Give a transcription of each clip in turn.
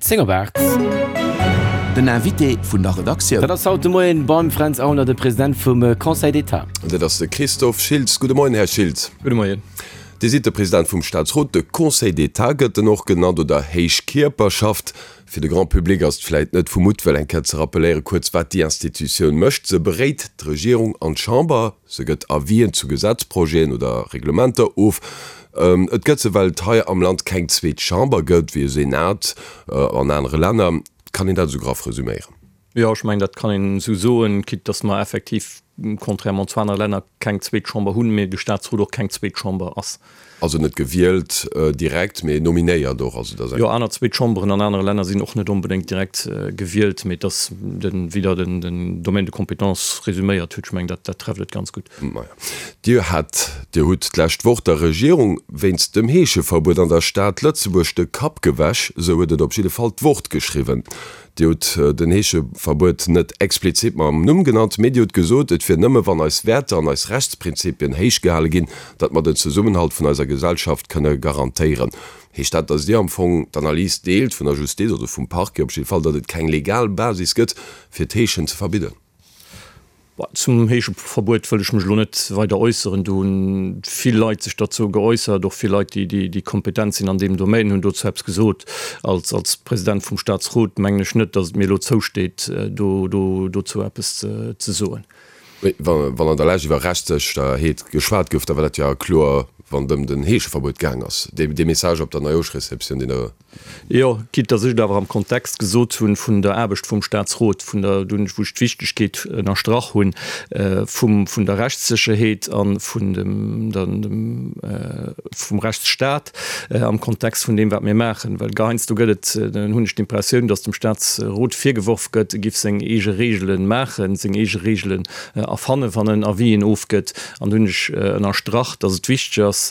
10 op 8. Den Invité vun der Redaktioun. Dat ass haut de Moien beim Fränz Aulner, de President vum Conseil d'État. Dat ass de Christophe Schiltz. Gudde Moien, Här Schiltz. Gudde Moien. Dir sidd de President vum Staatsrot, de Conseil d'État gëtt en och genannt, oder Héich Kierperschaft. Fir de Grand public ass et vläit net vu Muttwëll eng Kéier ze rappeléieren, kuerz wat déi Institutioun mécht. Se beréit d'Regierung an d'Chamber, se gëtt Avisen zu Gesetzprojeten oder Reglementer of. Et gëtt se, well et hei am Land keng zweet Chamber gëtt, wéi e Senat an anere Länner. Kann een dat esou graff resüméieren? Jo, ech mengen, dat kann een esou soen, quitte dass mer effektiv, contrairement zu anere Länner, keng zweet Chamber hunn, mee de Statsrot och keng zweet Chamber ass. Also net gewielt direkt, mee nominéiert och. Also dat ass eng. Jo, aner zweet Chamberen an anere Länner sinn och net onbedéngt direkt gewielt, mee et ass den, wéi Der den Domaine de compétence resüméiert hutt, ech mengen, dat, dat trefft et ganz gutt. Maja. Dir hat, Dir hutt d'lescht Woch der Regierung wéinst dem Heescheverbuet an der Stad Lëtzebuerg de Kapp gewäsch, esou huet et op jidde Fall d'Wort geschriwwen. Dir hutt den Heescheverbuet net explizit mam Numm genannt, mee Dir hutt gesot, et wier nëmme wann eis Wäerter an eis Rechtsprinzipien héich gehale ginn, datt mer den Zesummenhalt vun eiser Gesellschaft kënne garantéieren. Heescht dat, datt Dir am Fong d'Analys deelt vun der Justiz oder vum Parquet op jidde Fall, datt et keng legal Basis gëtt, fir d'Heeschen ze verbidden? Zum Heescheverbuet wëll ech mech elo net weider äusseren. Do hunn vill Leit sech derzou geäussert, och vill Leit, déi déi kompetent sinn an deem Domaine, hunn dozou eppes gesot. Als als President vum Statsrot mengen ech net, datt et mir elo zousteet, do do dozou eppes ze soen. Mee wann an der Lescht iwwer Rechtssécherheet geschwat gouf, da war dat jo kloer, wann et ëm den Heescheverbuet gaang ass. Dee Message op der Neijooschreceptioun, deen Der Jo, quitte dass ech et awer am Kontext gesot hunn vun der Aarbecht vum Statsrot, vun der, wou ech d'Wichtegkeet ënnerstrach hunn vum, vun der Rechtssécherheet a vun dem, dem, vum Rechtsstat am Kontext vun deem, wat mir maachen. Well heiansdo gëtt et, hunn ech d'Impressioun, dass dem Statsrot virgeworf gëtt, e giff seng eege Regele maachen, seng eege Regelen erfannen, wann en Avisen ofgëtt. An do hunn ech ënnerstrach, dass et wichteg ass,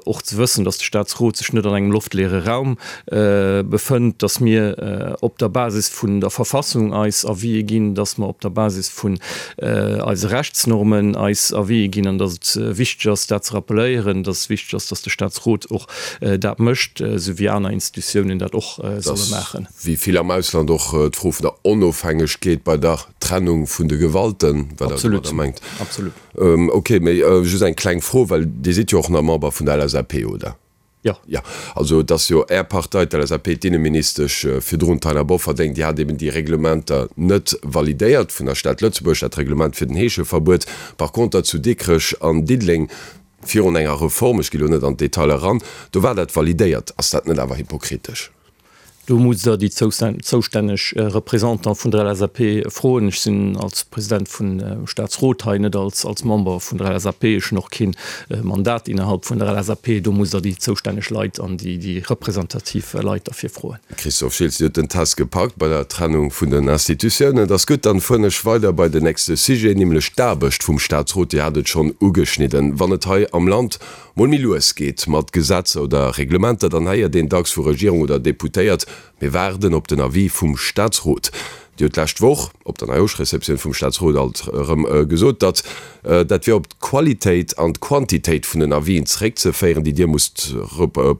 och ze wëssen, dass de Statsrot sech net an engem loftleere Raum befënnt, dass mir op der Basis vun der Verfassung eis Avisë ginn, dass mer op der Basis vun eise Rechtsnormen eis Avisë ginn an dass et wichteg ass, dat ze rappeléieren, dass et wichteg ass, dass de Statsrot och dat mécht, esou wéi aner Institutiounen dat och solle maachen. Wéi vill am Ausland och d'Fro vun der Onofhängegkeet bei der Trennung vun de Gewalten, wat Der domadder mengt. Absolut. Ok, mee just eng kleng Fro, well Dir sidd jo och nach Member vun der LSAP, oder? Jo. Jo, also et ass jo Är Partei, d'LSAP, d'Inneministesch virdrun, d'Taina Bofferding, déi hat eben déi Reglementer net validéiert vun der Stad Lëtzebuerg, dat Reglement fir den Heescheverbuet. Par conter zu Dikrech an Diddeleng, virun enger Reform, ech gi lo net an d'Detailer eran, do war dat validéiert. Ass dat net awer hypokritesch? Do musst Der déi zoustänneg Représentant vun der LSAP froen. Ech sinn als President vum Statsrot hei, net als Member vun der LSAP. Ech hunn och kee Mandat innerhalb vun der LSAP. Do musst Der déi zoustänneg Leit an déi representativ Leit derfir froen. Christophe Schiltz, Dir hutt den Test gepackt bei der Trennung vun den Institutiounen. Et ass gutt, dann fueren ech weider bei den nächste Sujet, nämlech d'Aarbecht vum Statsrot. Dir hat et schonn ugeschnidden. Wann et hei am Land mol méi lues geet mat Gesetzer oder Reglementer, dann héiert een dacks vu Regierung oder Deputéiert, Mir waarden op den Avis vum Statsrot. Dir hutt d'lescht Woch op der Neijooschreceptioun vum Statsrot alt erëm gesot, datt dat wier op d'Qualitéit an d'Quantitéit vun den Avisen zeréckzeféieren, déi Dir musst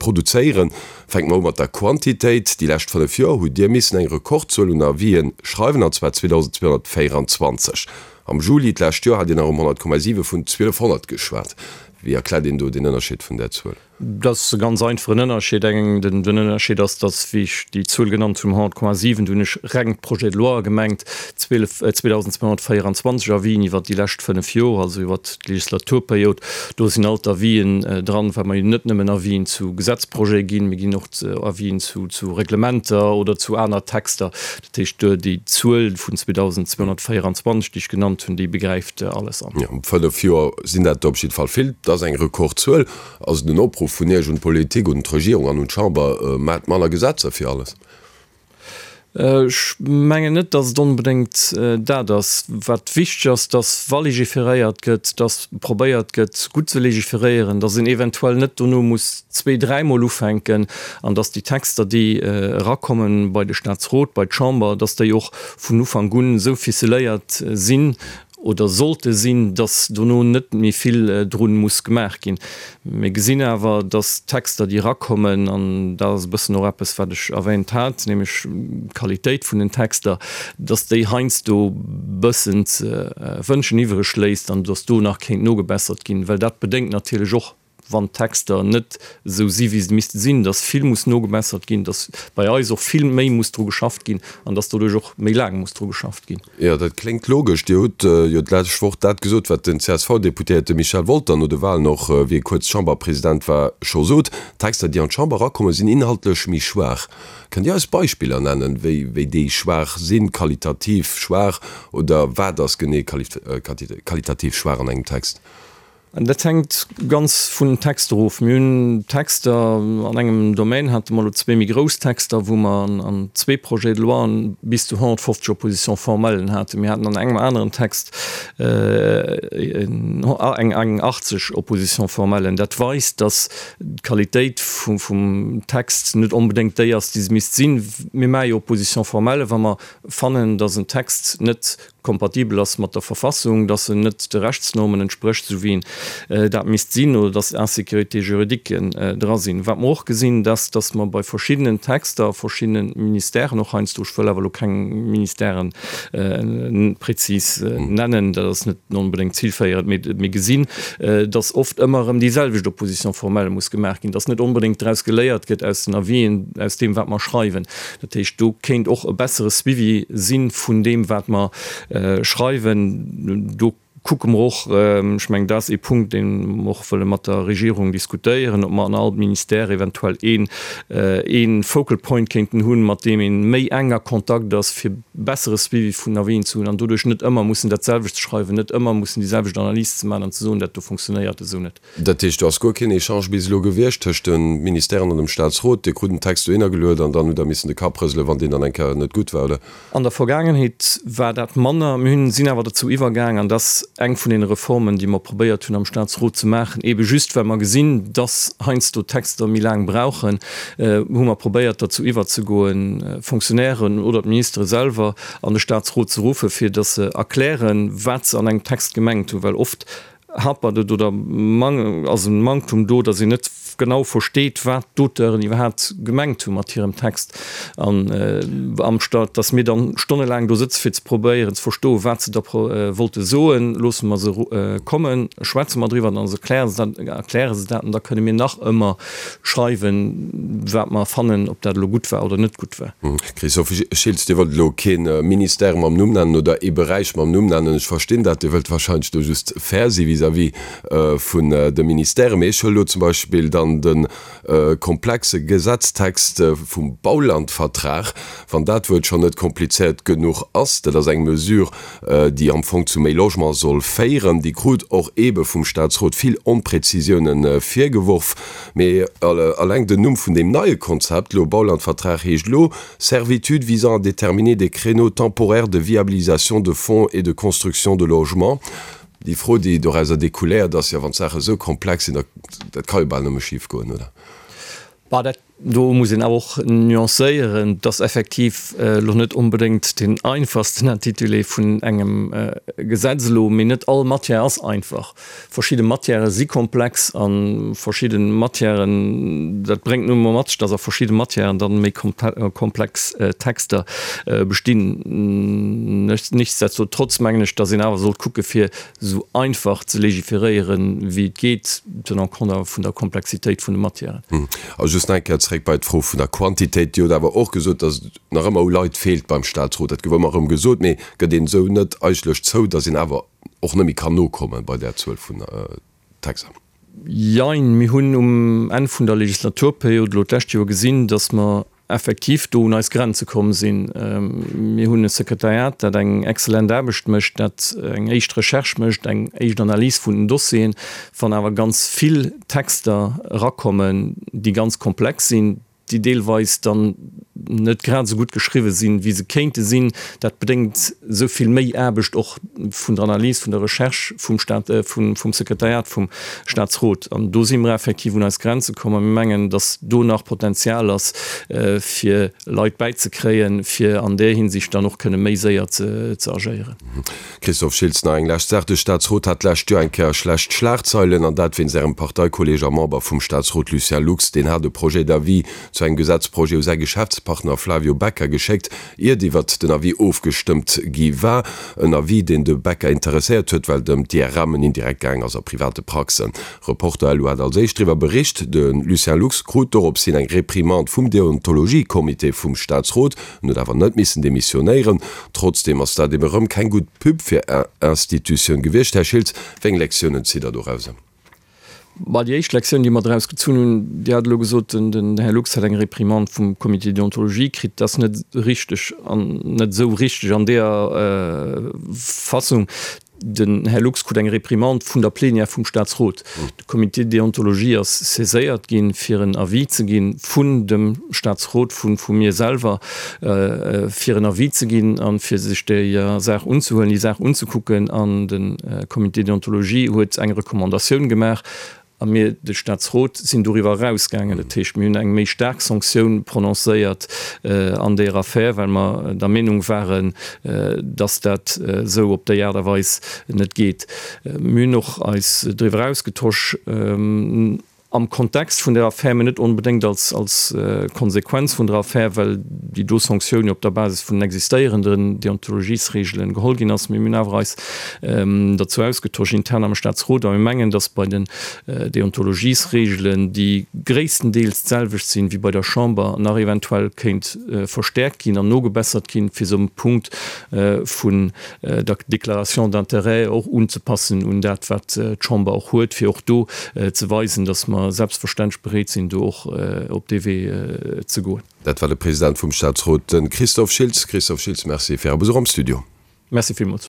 produzéieren. Fänke mer u mat der Quantitéit. Déi lescht 5 Joer hutt Dir missen eng Rekordzuel un Avisen schreiwen, an zwar 2.224. Am Juli d'lescht Joer hat Dir nach ëm 100,7 vun 1.200 geschwat. Wéi erkläert een do den Ënnerscheed vun där Zuel? Dat ass e ganz einfachen Ënnerscheed. Eng, den Ënnerscheed ass, datt, wéi ech déi Zuel genannt hunn, 100,7, do hunn ech reng d'Projets de loi gemengt, 12, 2.224 Avisen iwwert déi lescht fënnef Joer, also iwwert d'Legislaturperiod. Do sinn all d'Avisen dran, well mer jo net nëmmen Avisen zu Gesetzprojete ginn, mir ginn och Avisen zu, zu Reglementer oder zu aner Texter. Dat heescht, déi Zuel vun 2.224, déi ech genannt hunn, déi begräift alles an. Jo, 5 Joer sinn dat op jidde Fall vill. Dat ass eng Rekordzuel. Ass et en Opruff vun Iech un d'Politik, un d'Regierung an un d'Chamber, Maacht manner Gesetzer fir alles? Ech mengen net, datt et onbedéngt dat ass. Wat wichteg ass, datt wa legiferéiert gëtt, datt probéiert gëtt, gutt ze legiferéieren, datt een eventuell net dono muss zwee-, dräimol ufänken an datt déi Texter, déi erakommen bei de Statsrot, bei d'Chamber, datt déi och vun Ufank un esou ficeléiert sinn. oder sollte sinn, dass dono net méi vill drun muss gemaach ginn. Mir gesinn awer, dass d'Texter, déi erakommen, an dat ass e bëssen och eppes, wat ech erwähnt hat, nämlech d'Qualitéit vun den Texter, dass déi heiansdo bëssen ze wënschen iwwreg léisst an dass do nach kéint nogebessert ginn, well dat bedéngt natierlech och, wann d'Texter net esou si wéi se misste sinn, dass vill muss nogebessert ginn, dass bei eis och vill méi muss dru geschafft ginn an dass doduerch och méi laang muss dru geschafft ginn. Jo, dat kléngt logesch. Dir hutt jo d'lescht Woch dat gesot, wat den CSV-Deputéierte Michel Wolter no de Wahlen och, wéi e kuerz Chamberpresident war, scho sot, D'Texter, déi an d'Chamber erakommen, sinn inhaltlech méi schwaach. Kënnt Dir eis Beispiller nennen, wéi wéi déi schwaach sinn, qualitativ schwaach, oder wat ass genee qualitativ schwaach an engem Text? Dat hänkt ganz vun den Texter of. Mir hunn Texter, an engem Domaine hate mer elo zwee méi grouss Texter, wou mer an zwee Projets de loi bis zu 150 Oppositions formellen haten. Mir haten an engem aneren Text eng 80 Oppositions formellen. Dat weist, datt d'Qualitéit vum Text net onbedéngt déi ass, déi se misst sinn. Mir maache jo Oppositions formelles, wa mer fannen, datt en Text net kompatibel ass mat der Verfassung, dass en net de Rechtsnormen entsprécht, esou wéi en dat misst sinn, oder dass Insécurités juridiques dra sinn. Wat mer och gesinn, dat ass, dass mer bei verschiddenen Texter a verschiddene Ministèren, och heiansdo, ech wëll awer elo keng Ministèren prezis nennen, dat ass net onbedéngt zilféierend, mee mir gesinn, dass oft ëmmer erëm déi selwecht Opposition formelle muss gemaach ginn, dass net onbedéngt draus geléiert gëtt aus den Avisen, aus deem, wat mer schreiwen. Dat heescht, do kéint och e bessere Suivi si vun deem, wat mer schreiwen. Do kucke mer och, ech mengen, dat ass ee Punkt, dee mer och wëlle mat der Regierung diskutéieren, ob mer an all Ministère eventuell een, ee Focal Point kéinten hunn, mat deem ee méi enk a Kontakt ass, fir bessere Suivi vun Avisen ze hunn an doduerch net ëmmer mussen dat selwecht ze schreiwen, net ëmmer mussen déi selwecht Analys ze maachen an ze soen, dat do fonctionnéiert esou net. Dat heescht, do ass guer keen Echange bis elo gewiescht tëscht de Ministèren an dem Staatsrot. Dir krut den Text dohinner geluet an dann hutt Der missen de Kapp rëselen, wann deen dann eng Kéier net gutt war, oder? An der Vergaangenheet war dat manner. Mir hunn, sinn awer dozou iwwergaang, an dat ass eng vun deene Reformen, déi mer probéiert hunn am Staatsrot ze maachen, eebe just well mer gesinn, dass heiansdo Texter méi laang brauchen, hu mer probéiert derzou iwwerzegoen, Fonctionnairen oder d'Ministere selwer an de Staatsrot ze ruffen, fir dass se erklären, wat se an engem Text gemengt hunn, well oft Hapert et oder ass e Manktum do, datt een net genau versteet, wat d'Auteuren iwwerhaapt gemengt hu mat hirem Text, an amstatt datt mir dann stonnelaang do sëtze fir ze probéieren ze verstoen, wat se da wollte soen, loosse mer se kommen, schwätze mer driwwer, dann erkläre se dat, erkläre se dat an da kënne mir nach ëmmer schreiwen, wat mer fannen, ob dat elo gutt war oder net gutt war. Christophe Schiltz, Dir wëllt elo kee Ministère mam Numm nennen oder ee Beräich mam Numm nennen. Ech verstinn dat, Dir wëllt wahrscheinlech do just fair si vis-à-vis vun de Ministèren. Mee ech huele elo zum Beispill dann de komplexe Gesetztext vum Baulandvertrag, wann dat Wuert schonn net komplizéiert genuch ass. Dat ass eng Mesure, déi am Fong zu méi Logement soll féieren. Déi krut och eebe vum Staatsrot vill Onpräzisiounen virgeworf. Mee alleng den Numm vun deem neie Konzept, elo Baulandvertrag, heescht elo Servitude visant à déterminer des créneaux temporaires de viabilisation de fonds et de construction de logements. Déi Fro, déi dorauser découléiert, ass jo, wann d'Saache esou komplex sinn, da dat ka jo bal nëmme schif goen, oder? Bah, dat do muss een awer och nuancéieren, et ass effektiv elo net onbedéngt deen einfachsten Intitulé vun engem Gesetz elo, mee net all Matière ass einfach. Verschidde Matièrë si komplex a verschidde Matièren, dat bréngt nun emol mat sech, dass a verschidde Matièren dann méi komplex Texter bestinn. Nichtsdestotrotz mengen ech, dass een awer sollt kucke fir esou einfach ze legiferéieren, wéi et geet, tenant compte awer vun der Komplexitéit vun de Matièren. A just nach eng Kéier zréck bei d'Fro vun der Quantitéit. Dir hutt awer och gesot, dass et nach ëmmer u Leit feelt beim Statsrot. Dat gouf ëmmer erëm gesot. Mee gëtt een esou net eigentlech zou, dass een awer och net méi kann nokomme bei där Zuel vun Texter? Jein. Mir hunn um Enn vun der Legislaturperiod elo d'lescht Joer gesinn, dass mer effektiv do un eis Grenze komm sinn. Mir hunn e Sekretariat, dat eng exzellent Aarbecht mécht, dat eng éischt Recherche mécht, eng éischt Analys vun den Dossieren. Wann awer ganz vill Texter erakommen, déi ganz komplex sinn, déi deelweis dann net grad esou gutt geschriwwe sinn, wéi se kéinte sinn. Dat bedéngt esou vill méi Aarbecht och vun der Analys, vun der Recherche vum Stat, vum Sekretariat vum Statsrot. An do si mer effektiv un eis Grenze komm a mir mengen, dass do nach Potenzial ass, fir Leit bäizekréien, fir an där Hinsicht dann och kënne méi séier ze agéieren. Christophe Schiltz, Nach eng lescht Saach, De Staatsrot hat d'lescht Joer eng Kéier schlecht Schlagzeilen, an dat wéinst Ärem Parteikolleeg a Member vum Staatsrot Lucien Lux. Deen hat e Projet d'avis zu engem Gesetzprojet u säi Geschäftspartner Flavio Becca geschéckt, iert iwwert den Avis ofgestëmmt gi war. En Avis, deen de Becca interesséiert huet, well et ëm d'IRMen indirekt gaang ass a private Praxen. Reporter.lu hat als éischt driwwer bericht. De Lucien Lux krut dorops hin eng Reprimande vum Deontologie-Comité vum Staatsrot. En huet awer net missen demissionéieren. Trotzdeem ass dat ebe rëm keng gutt Pub fir Är Institutioun gewiescht. Här Schiltz, wéi eng Lektiounen zitt Der dorauser? Bah, déi éischt Lektioun, déi mer draus gezunn hunn, Dir hat elo gesot, den Här Lux hätt eng Réprimande vum Comité de déontologie kritt. Dat ass net richteg an net esou richteg an deeër Fassung. Den Här Lux krut eng Réprimande vun der Plénière vum Statsrot. De Comité de déontologie ass saiséiert ginn, fir en Avis ze ginn, vun dem Statsrot, vu vu mir selwer, fir en Avis ze ginn a fir sech déi Saach unzehuelen, déi Saach unzekucken. An de Comité de déontologie huet eng Recommandatioun gemaach. A mir, de Statsrot, sinn doriwwer erausgaangen. Dat heescht, mir hunn eng méi staark Sanktioun prononcéiert an deer Affär, well mer der Meenung waren, dass dat esou op déi Aart a Weis net geet. Mir hunn och eis driwwer ausgetosch am Kontext vun der Affär, mä net onbedéngt als Konsequenz vun der Affär, well déi do Sanktioun jo op der Basis vun den existéierenden Deontologiesregelen geholl ginn ass. Mee mir hunn awer eis derzou ausgetosch intern am Staatsrot a mir mengen, datt bei den Deontologiesregelen, déi gréisstendeels d'selwecht sinn wéi bei der Chamber, nach eventuell kéint verstäerkt ginn an nogebessert ginn, fir se um Punkt vun der Déclaration d'intérêts och unzepassen un dat, wat d'Chamber och huet, fir och do ze weisen, datt mer selbstverständlech bereet sinn, do och op dee Wee ze goen. Dat war de President vum Staatsrot, de Christophe Schiltz. Christophe Schiltz, Merci fir Är Besuch am Studio. Merci villmools.